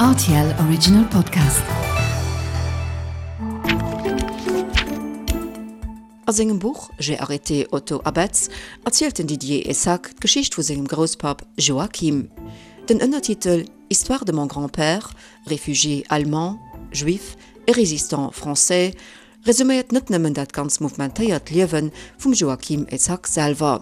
Rtl Original Podcast. A sengem Buch J'ai arrêté Otto Abetz erzielt den Didier Essack d'Geschicht vu sengem Grousspapp Joachim. Den Ënnertitel Histoire de mon grand-père, réfugié allemand, juif et résistant français resuméiert net nëmmen dat ganz mouvementéiert Liewe vum Joachim Essack selwer.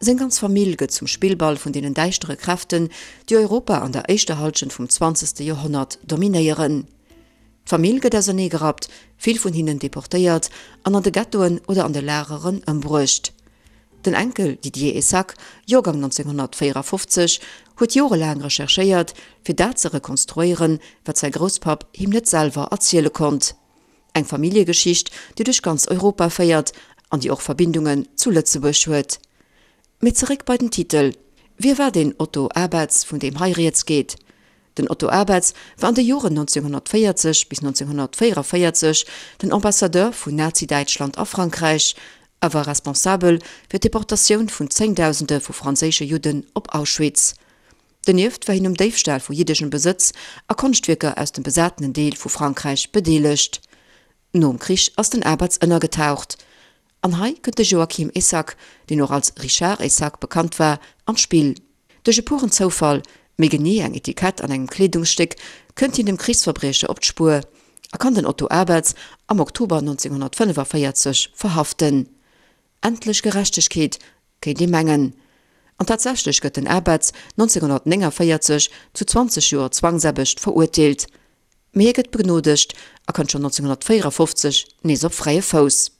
Seng ganz Famill gëtt zum Spillball vun deenen däischtere Kräften, déi Europa an der éischter Halschent vum zwanzegste Joerhonnert dominéieren. D'Famill gëtt auserneegerappt, vill vun hinnen deportéiert an an de Ghettoen oder an de Lageren ëmbruecht. Den Enkel Didier Essack, Joergang 1954, huet jorelaang recherchéiert, fir dat ze rekonstruéieren, wat säi Grousspapp him net selwer erziele konnt. Eng Familljegeschicht, déi duerch ganz Europa féiert an déi och Verbindungen zu Lëtzebuerg huet. Mee zeréck bei den Titel, Wie war deen Otto Abetz, vun deem hei rieds geet? Den Otto Abetz war an de Joren 1940 bis 1944 den Ambassadeur vun Nazi-Däitschland a Frankräich a war responsabel fir d'Deportatioun vun Zéngdausende vu franséische Judden op Auschwitz. Donieft war hien um Déifstal vu jiddeschem Besëtz a Konschtwierker aus dem besatenen Deel vu Frankräich bedeelegt. Nom Krich ass den Abetz ënnergetaucht. An hei kënnt de Joachim Essack, deen och als Richard Essack bekannt war, an d'Spill. Duerch e puren Zoufall, méi genee eng Etikett an engem Kleedungsstéck, kënnt hien dem Krichsverbriecher op d'Spuer a kann den Otto Abetz am Oktober 1945 verhaften. Endlech Gerechtegkeet, kéint ee mengen. An tatsächlech gëtt den Abetz 1949 zu 20 Joer Zwangsaarbecht verurteelt. Mee hie gëtt begnodegt a kënnt schonn 1954 nees op fräie Fouss.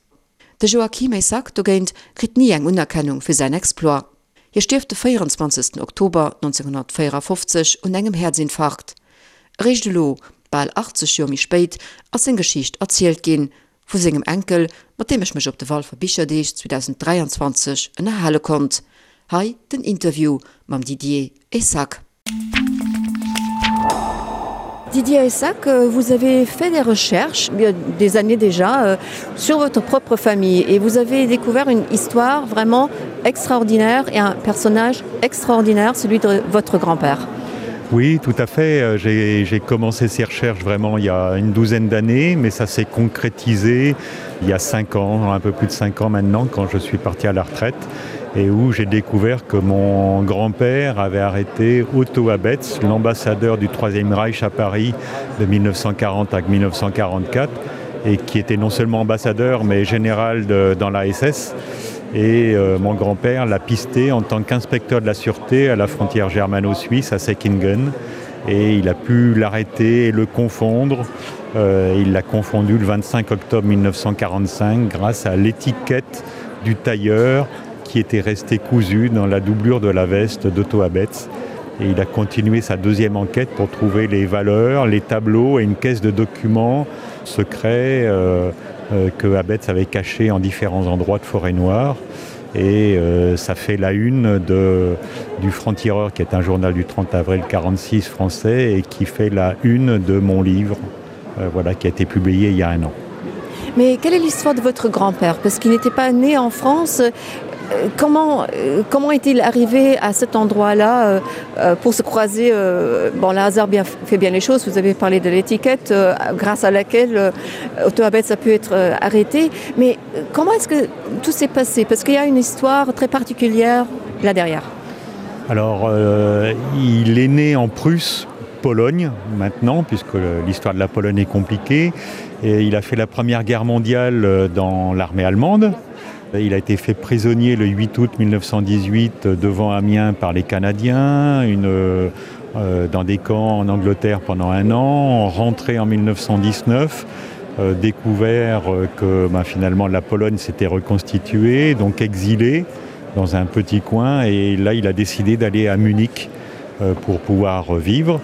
De Joachim Essack dogéint kritt ni eng Unerkennung fir säin Exploit. Hie stierft de 24 Oktober 1954 un engem Häerzinfarkt. Eréischt elo, bal 80 Joer méi spéit, ass seng Geschicht erzielt ginn, vu sengem Enkel, mat deem ech mech op de Walfer Bicherdeeg 2023 ënnerhale konnt. Hei den Interview mam Didier Essack. Didier Essack, vous avez fait des recherches, il y a des années déjà, sur votre propre famille et vous avez découvert une histoire vraiment extraordinaire et un personnage extraordinaire, celui de votre grand-père. Oui, tout à fait. J'ai commencé ces recherches vraiment il y a une douzaine d'années, mais ça s'est concrétisé il y a cinq ans, un peu plus de cinq ans maintenant, quand je suis parti à la retraite et où j'ai découvert que mon grand-père avait arrêté Otto Abetz, l'ambassadeur du Troisième Reich à Paris de 1940 à 1944 et qui était non seulement ambassadeur mais général de, dans l'ASS et euh, mon grand-père l'a pisté en tant qu'inspecteur de la sûreté à la frontière germano-suisse à Säckingen et il a pu l'arrêter et le confondre. Euh, il l'a confondu le 25 octobre 1945 grâce à l'étiquette du tailleur qui était resté cousu dans la doublure de la veste d'Otto Abetz. Et il a continué sa deuxième enquête pour trouver les valeurs, les tableaux et une caisse de documents secrets euh, euh, que Abetz avait caché en différents endroits de forêt noire. Et euh, ça fait la une de, du Franc-Tireur, qui est un journal du 30 avril 46 français et qui fait la une de mon livre, euh, voilà, qui a été publié il y a un an. Mais quelle est l'histoire de votre grand-père Parce qu'il n'était pas né en France. Euh, comment, euh, comment est-il arrivé à cet endroit-là euh, pour se croiser Bon, le hasard bien, fait bien les choses. Vous avez parlé de l'étiquette grâce à laquelle Otto Abetz a pu être arrêté. Mais comment est-ce que tout s'est passé Parce qu'il y a une histoire très particulière là derrière. Alors, euh, il est né en Prusse, Pologne maintenant, puisque l'histoire de la Pologne est compliquée. Et il a fait la Première Guerre mondiale dans l'armée allemande. Il a été fait prisonnier le 8 août 1918 devant Amiens par les Canadiens, une, euh, dans des camps en Angleterre pendant un an, rentré en 1919, euh, découvert euh, que ben, finalement la Pologne s'était reconstituée, donc exilé dans un petit coin et là il a décidé d'aller à Munich euh, pour pouvoir vivre.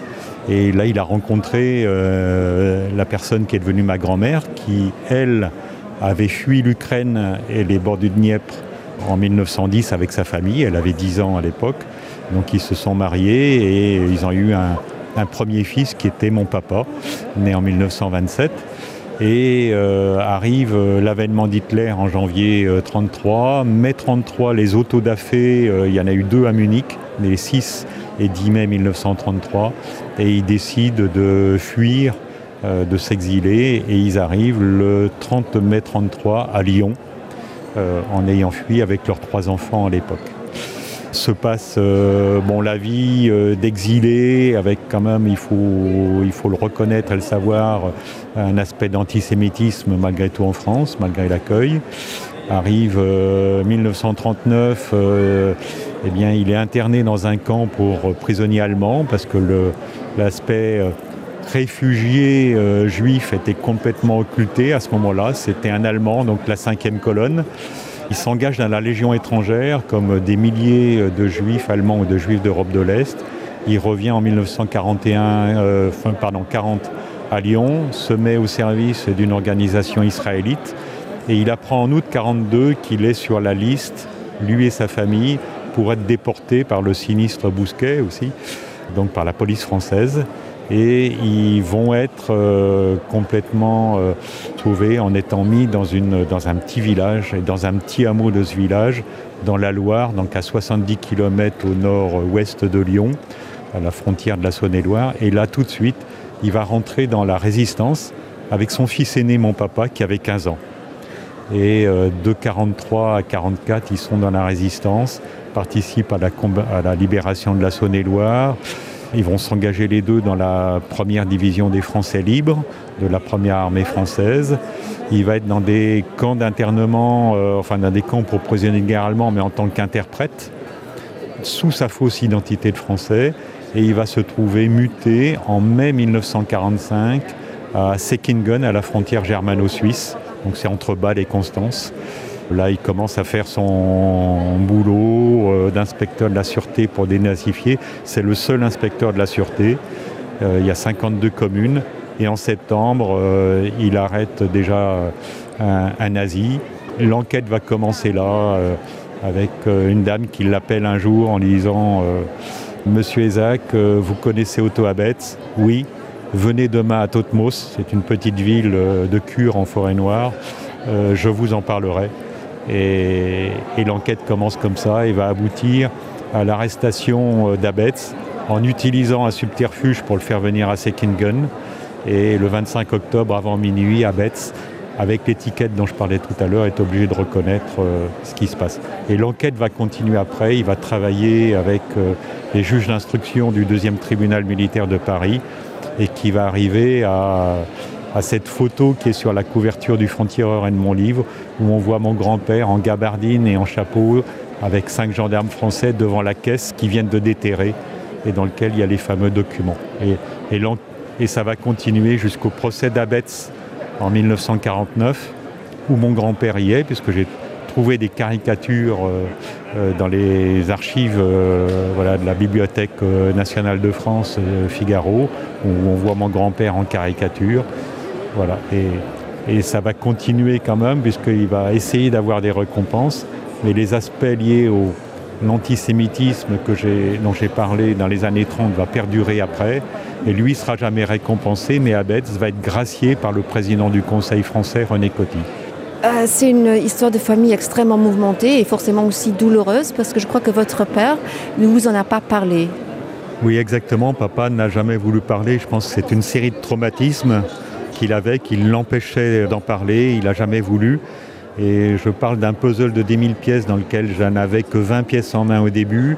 Et là il a rencontré euh, la personne qui est devenue ma grand-mère qui, elle, avait fui l'Ukraine et les bords du Dniepr en 1910 avec sa famille, elle avait 10 ans à l'époque. Donc ils se sont mariés et ils ont eu un, un premier fils qui était mon papa, né en 1927. Et euh, arrive euh, l'avènement d'Hitler en janvier 1933, euh, mai 1933, les autodafés, euh, il y en a eu deux à Munich, les six et 10 mai 1933 et ils décident de fuir, euh, de s'exiler et ils arrivent le 30 mai 33 à Lyon euh, en ayant fui avec leurs trois enfants à l'époque. Se passe euh, bon, la vie euh, d'exilé avec quand même il faut, il faut le reconnaître et le savoir un aspect d'antisémitisme malgré tout en France, malgré l'accueil. Arrive euh, 1939, euh, eh bien, il est interné dans un camp pour prisonniers allemands parce que l'aspect euh, réfugié euh, juif était complètement occulté à ce moment-là. C'était un Allemand, donc la cinquième colonne. Il s'engage dans la Légion étrangère comme des milliers euh, de juifs allemands ou de juifs d'Europe de l'Est. Il revient en 1941 euh, fin, pardon, 40 à Lyon, se met au service d'une organisation israélite et il apprend en août 42 qu'il est sur la liste, lui et sa famille, pour être déporté par le sinistre Bousquet aussi, donc par la police française et ils vont être euh, complètement euh, trouvés en étant mis dans, une, dans un petit village et dans un petit hameau de ce village dans la Loire, donc à 70 km au nord-ouest de Lyon, à la frontière de la Saône-et-Loire. Et là tout de suite, il va rentrer dans la résistance avec son fils aîné, mon papa, qui avait 15 ans. Et euh, de 43 à 44, ils sont dans la résistance, participent à la, à la libération de la Saône-et-Loire. Ils vont s'engager les deux dans la première division des Français libres, de la première armée française. Il va être dans des camps d'internement, euh, enfin dans des camps pour prisonniers de guerre allemands, mais en tant qu'interprète, sous sa fausse identité de français. Et il va se trouver muté en mai 1945 à Seckingen, à la frontière germano-suisse. Donc c'est entre Bâle et Constance. Là, il commence à faire son boulot euh, d'inspecteur de la sûreté pour dénazifier. C'est le seul inspecteur de la sûreté. Euh, il y a 52 communes et en septembre, euh, il arrête déjà un, un nazi. L'enquête va commencer là euh, avec euh, une dame qui l'appelle un jour en lui disant euh, Monsieur Isaac, euh, vous connaissez Otto Abetz Oui, venez demain à Totmos, c'est une petite ville euh, de cure en forêt noire, euh, je vous en parlerai. Et, et l'enquête commence comme ça et va aboutir à l'arrestation euh, d'Abetz en utilisant un subterfuge pour le faire venir à Seckingen. Et le 25 octobre avant minuit, Abetz, avec l'étiquette dont je parlais tout à l'heure, est obligé de reconnaître euh, ce qui se passe. Et l'enquête va continuer après, il va travailler avec euh, les juges d'instruction du deuxième tribunal militaire de Paris et qui va arriver à, à cette photo qui est sur la couverture du Frontier-Tireur et de mon livre, où on voit mon grand-père en gabardine et en chapeau avec cinq gendarmes français devant la caisse qui viennent de déterrer et dans lequel il y a les fameux documents. Et, et, et ça va continuer jusqu'au procès d'Abetz en 1949, où mon grand-père y est, puisque j'ai trouvé des caricatures euh, euh, dans les archives euh, voilà, de la Bibliothèque euh, nationale de France euh, Figaro, où on voit mon grand-père en caricature. Voilà. Et, et ça va continuer quand même, puisqu'il va essayer d'avoir des récompenses, mais les aspects liés au l'antisémitisme que dont j'ai parlé dans les années 30 va perdurer après et lui sera jamais récompensé mais Abetz va être gracié par le président du Conseil français René Coty. Euh, c'est une histoire de famille extrêmement mouvementée et forcément aussi douloureuse parce que je crois que votre père ne vous en a pas parlé. Oui exactement, papa n'a jamais voulu parler, je pense que c'est une série de traumatismes qu'il avait, qui l'empêchait d'en parler, il n'a jamais voulu. Et je parle d'un puzzle de 10 000 pièces dans lequel je n'avais que 20 pièces en main au début.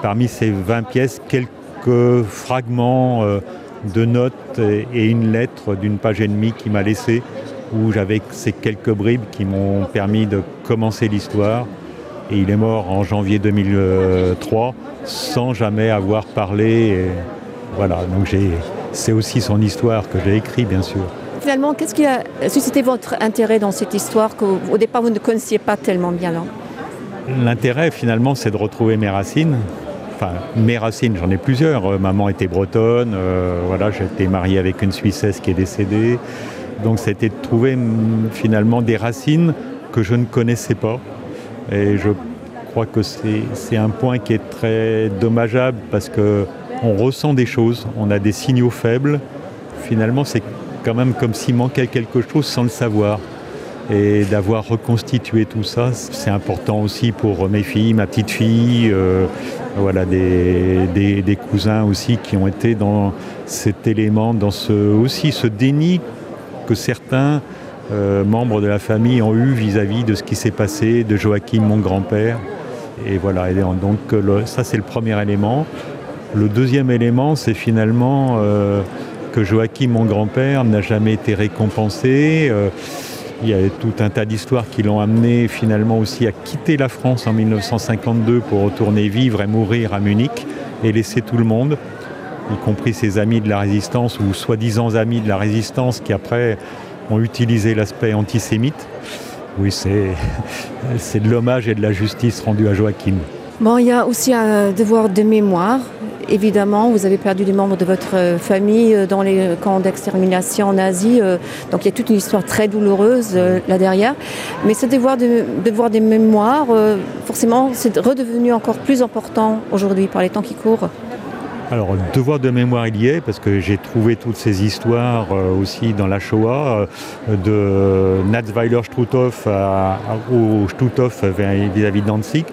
Parmi ces 20 pièces, quelques fragments euh, de notes et une lettre d'une page et demie qui m'a laissé où j'avais ces quelques bribes qui m'ont permis de commencer l'histoire. Et il est mort en janvier 2003 sans jamais avoir parlé. Et voilà, donc c'est aussi son histoire que j'ai écrit bien sûr. Finalement, qu'est-ce qui a suscité votre intérêt dans cette histoire qu'au départ vous ne connaissiez pas tellement bien là L'intérêt finalement c'est de retrouver mes racines. Enfin, mes racines, j'en ai plusieurs. Euh, maman était bretonne, euh, voilà, j'étais marié avec une Suissesse qui est décédée. Donc c'était de trouver mm, finalement des racines que je ne connaissais pas. Et je crois que c'est un point qui est très dommageable parce qu'on ressent des choses, on a des signaux faibles. Finalement, c'est quand même comme s'il manquait quelque chose sans le savoir. Et d'avoir reconstitué tout ça, c'est important aussi pour mes filles, ma petite fille, euh, voilà, des, des, des cousins aussi qui ont été dans cet élément, dans ce, aussi ce déni que certains euh, membres de la famille ont eu vis-à-vis -vis de ce qui s'est passé, de Joachim, mon grand-père. Et voilà, et donc le, ça c'est le premier élément. Le deuxième élément, c'est finalement euh, que Joachim, mon grand-père, n'a jamais été récompensé. Euh, il y a tout un tas d'histoires qui l'ont amené finalement aussi à quitter la France en 1952 pour retourner vivre et mourir à Munich et laisser tout le monde, y compris ses amis de la résistance ou soi-disant amis de la résistance qui après ont utilisé l'aspect antisémite. Oui, c'est de l'hommage et de la justice rendue à Joachim. Bon, il y a aussi un devoir de mémoire. Évidemment, vous avez perdu des membres de votre euh, famille euh, dans les camps d'extermination nazie. Euh, donc il y a toute une histoire très douloureuse là derrière. Mais ce devoir de devoir des mémoires, forcément, c'est redevenu encore plus important aujourd'hui par les temps qui courent. Alors devoir de mémoire il y est parce que j'ai trouvé toutes ces histoires aussi dans la Shoah de Natzweiler Struthof à, au Struthof vis-à-vis -vis de Danzig.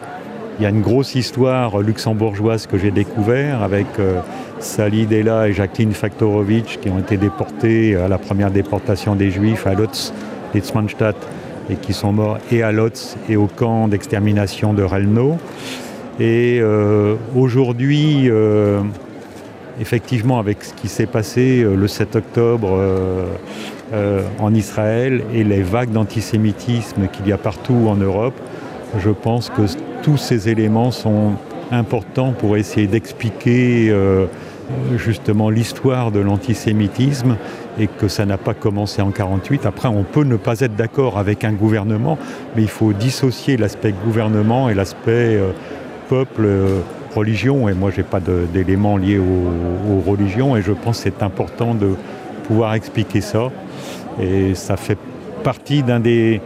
Il y a une grosse histoire luxembourgeoise que j'ai découvert avec euh, Sally Della et Jacqueline Faktorowicz qui ont été déportées à la première déportation des Juifs à Lotz, Litzmannstadt et qui sont morts et à Lotz et au camp d'extermination de Relno. Et euh, aujourd'hui, euh, effectivement, avec ce qui s'est passé euh, le 7 octobre euh, euh, en Israël et les vagues d'antisémitisme qu'il y a partout en Europe, je pense que tous ces éléments sont importants pour essayer d'expliquer euh, justement l'histoire de l'antisémitisme et que ça n'a pas commencé en 48. Après, on peut ne pas être d'accord avec un gouvernement, mais il faut dissocier l'aspect gouvernement et l'aspect euh, peuple euh, religion. Et moi, je n'ai pas d'éléments liés aux, aux religions et je pense que c'est important de pouvoir expliquer ça. Et ça fait partie d'un des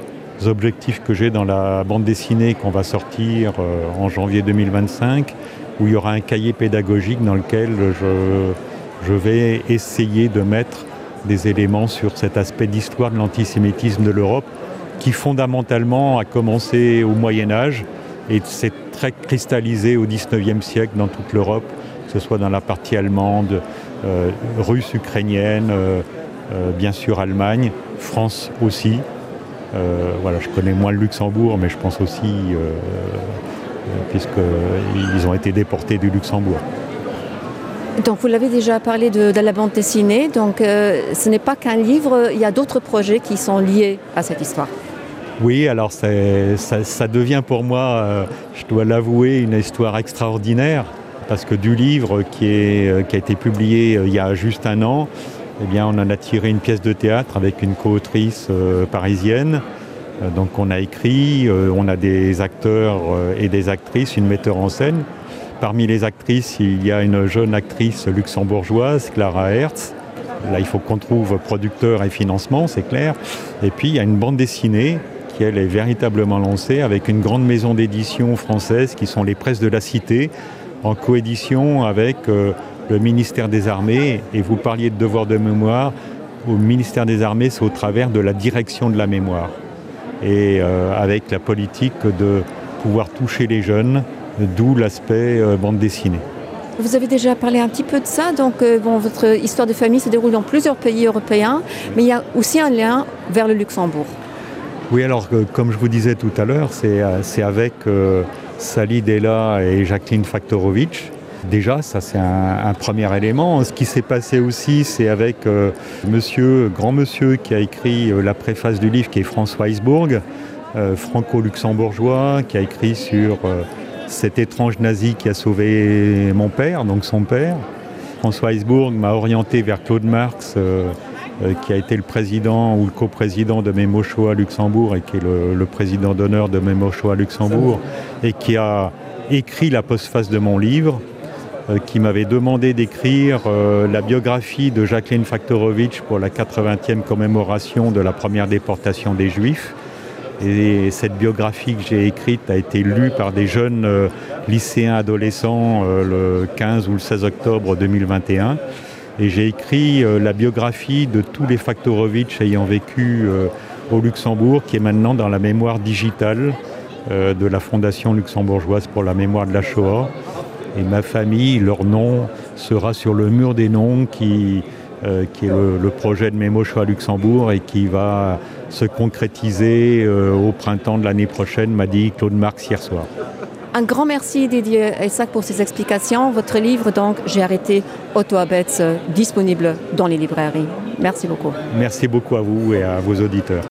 objectifs que j'ai dans la bande dessinée qu'on va sortir euh, en janvier 2025 où il y aura un cahier pédagogique dans lequel je, je vais essayer de mettre des éléments sur cet aspect d'histoire de l'antisémitisme de l'Europe qui fondamentalement a commencé au Moyen Âge et s'est très cristallisé au 19e siècle dans toute l'Europe, que ce soit dans la partie allemande, euh, russe, ukrainienne, euh, euh, bien sûr Allemagne, France aussi. Euh, voilà, je connais moins le Luxembourg, mais je pense aussi euh, euh puisqu'ils ont été déportés du Luxembourg. Donc vous l'avez déjà parlé de, de la bande dessinée, donc euh, ce n'est pas qu'un livre, il y a d'autres projets qui sont liés à cette histoire. Oui, alors ça, ça devient pour moi, euh, je dois l'avouer, une histoire extraordinaire parce que du livre qui, est, euh, qui a été publié euh, il y a juste un an, eh bien, on en a tiré une pièce de théâtre avec une coautrice euh, parisienne. Euh, donc on a écrit, euh, on a des acteurs euh, et des actrices, une metteur en scène. Parmi les actrices, il y a une jeune actrice luxembourgeoise, Clara Hertz. Là, il faut qu'on trouve producteur et financement, c'est clair. Et puis il y a une bande dessinée qui elle est véritablement lancée avec une grande maison d'édition française qui sont les presses de la cité en coédition avec euh, le ministère des armées et vous parliez de devoir de mémoire au ministère des armées c'est au travers de la direction de la mémoire et euh, avec la politique de pouvoir toucher les jeunes d'où l'aspect euh, bande dessinée. Vous avez déjà parlé un petit peu de ça donc euh, bon, votre histoire de famille se déroule dans plusieurs pays européens mais il y a aussi un lien vers le Luxembourg. Oui alors euh, comme je vous disais tout à l'heure c'est euh, avec euh, Sally Della et Jacqueline Faktorowicz Déjà, ça c'est un, un premier élément. Ce qui s'est passé aussi, c'est avec euh, monsieur, grand monsieur qui a écrit euh, la préface du livre qui est François Heisbourg, euh, franco-luxembourgeois, qui a écrit sur euh, cet étrange nazi qui a sauvé mon père, donc son père. François Heisbourg m'a orienté vers Claude Marx, euh, euh, qui a été le président ou le coprésident de Mémocho à Luxembourg et qui est le, le président d'honneur de Mémocho à Luxembourg et qui a écrit la postface de mon livre. Euh, qui m'avait demandé d'écrire euh, la biographie de Jacqueline Faktorowicz pour la 80e commémoration de la première déportation des Juifs. Et cette biographie que j'ai écrite a été lue par des jeunes euh, lycéens adolescents euh, le 15 ou le 16 octobre 2021. Et j'ai écrit euh, la biographie de tous les Faktorowicz ayant vécu euh, au Luxembourg qui est maintenant dans la mémoire digitale euh, de la Fondation luxembourgeoise pour la mémoire de la Shoah. Et ma famille, leur nom sera sur le mur des noms qui, euh, qui est le, le projet de Mémo Shoah Luxembourg et qui va se concrétiser euh, au printemps de l'année prochaine, m'a dit Claude Marx hier soir. Un grand merci Didier Essac pour ces explications. Votre livre donc j'ai arrêté Otto Abetz euh, disponible dans les librairies. Merci beaucoup. Merci beaucoup à vous et à vos auditeurs.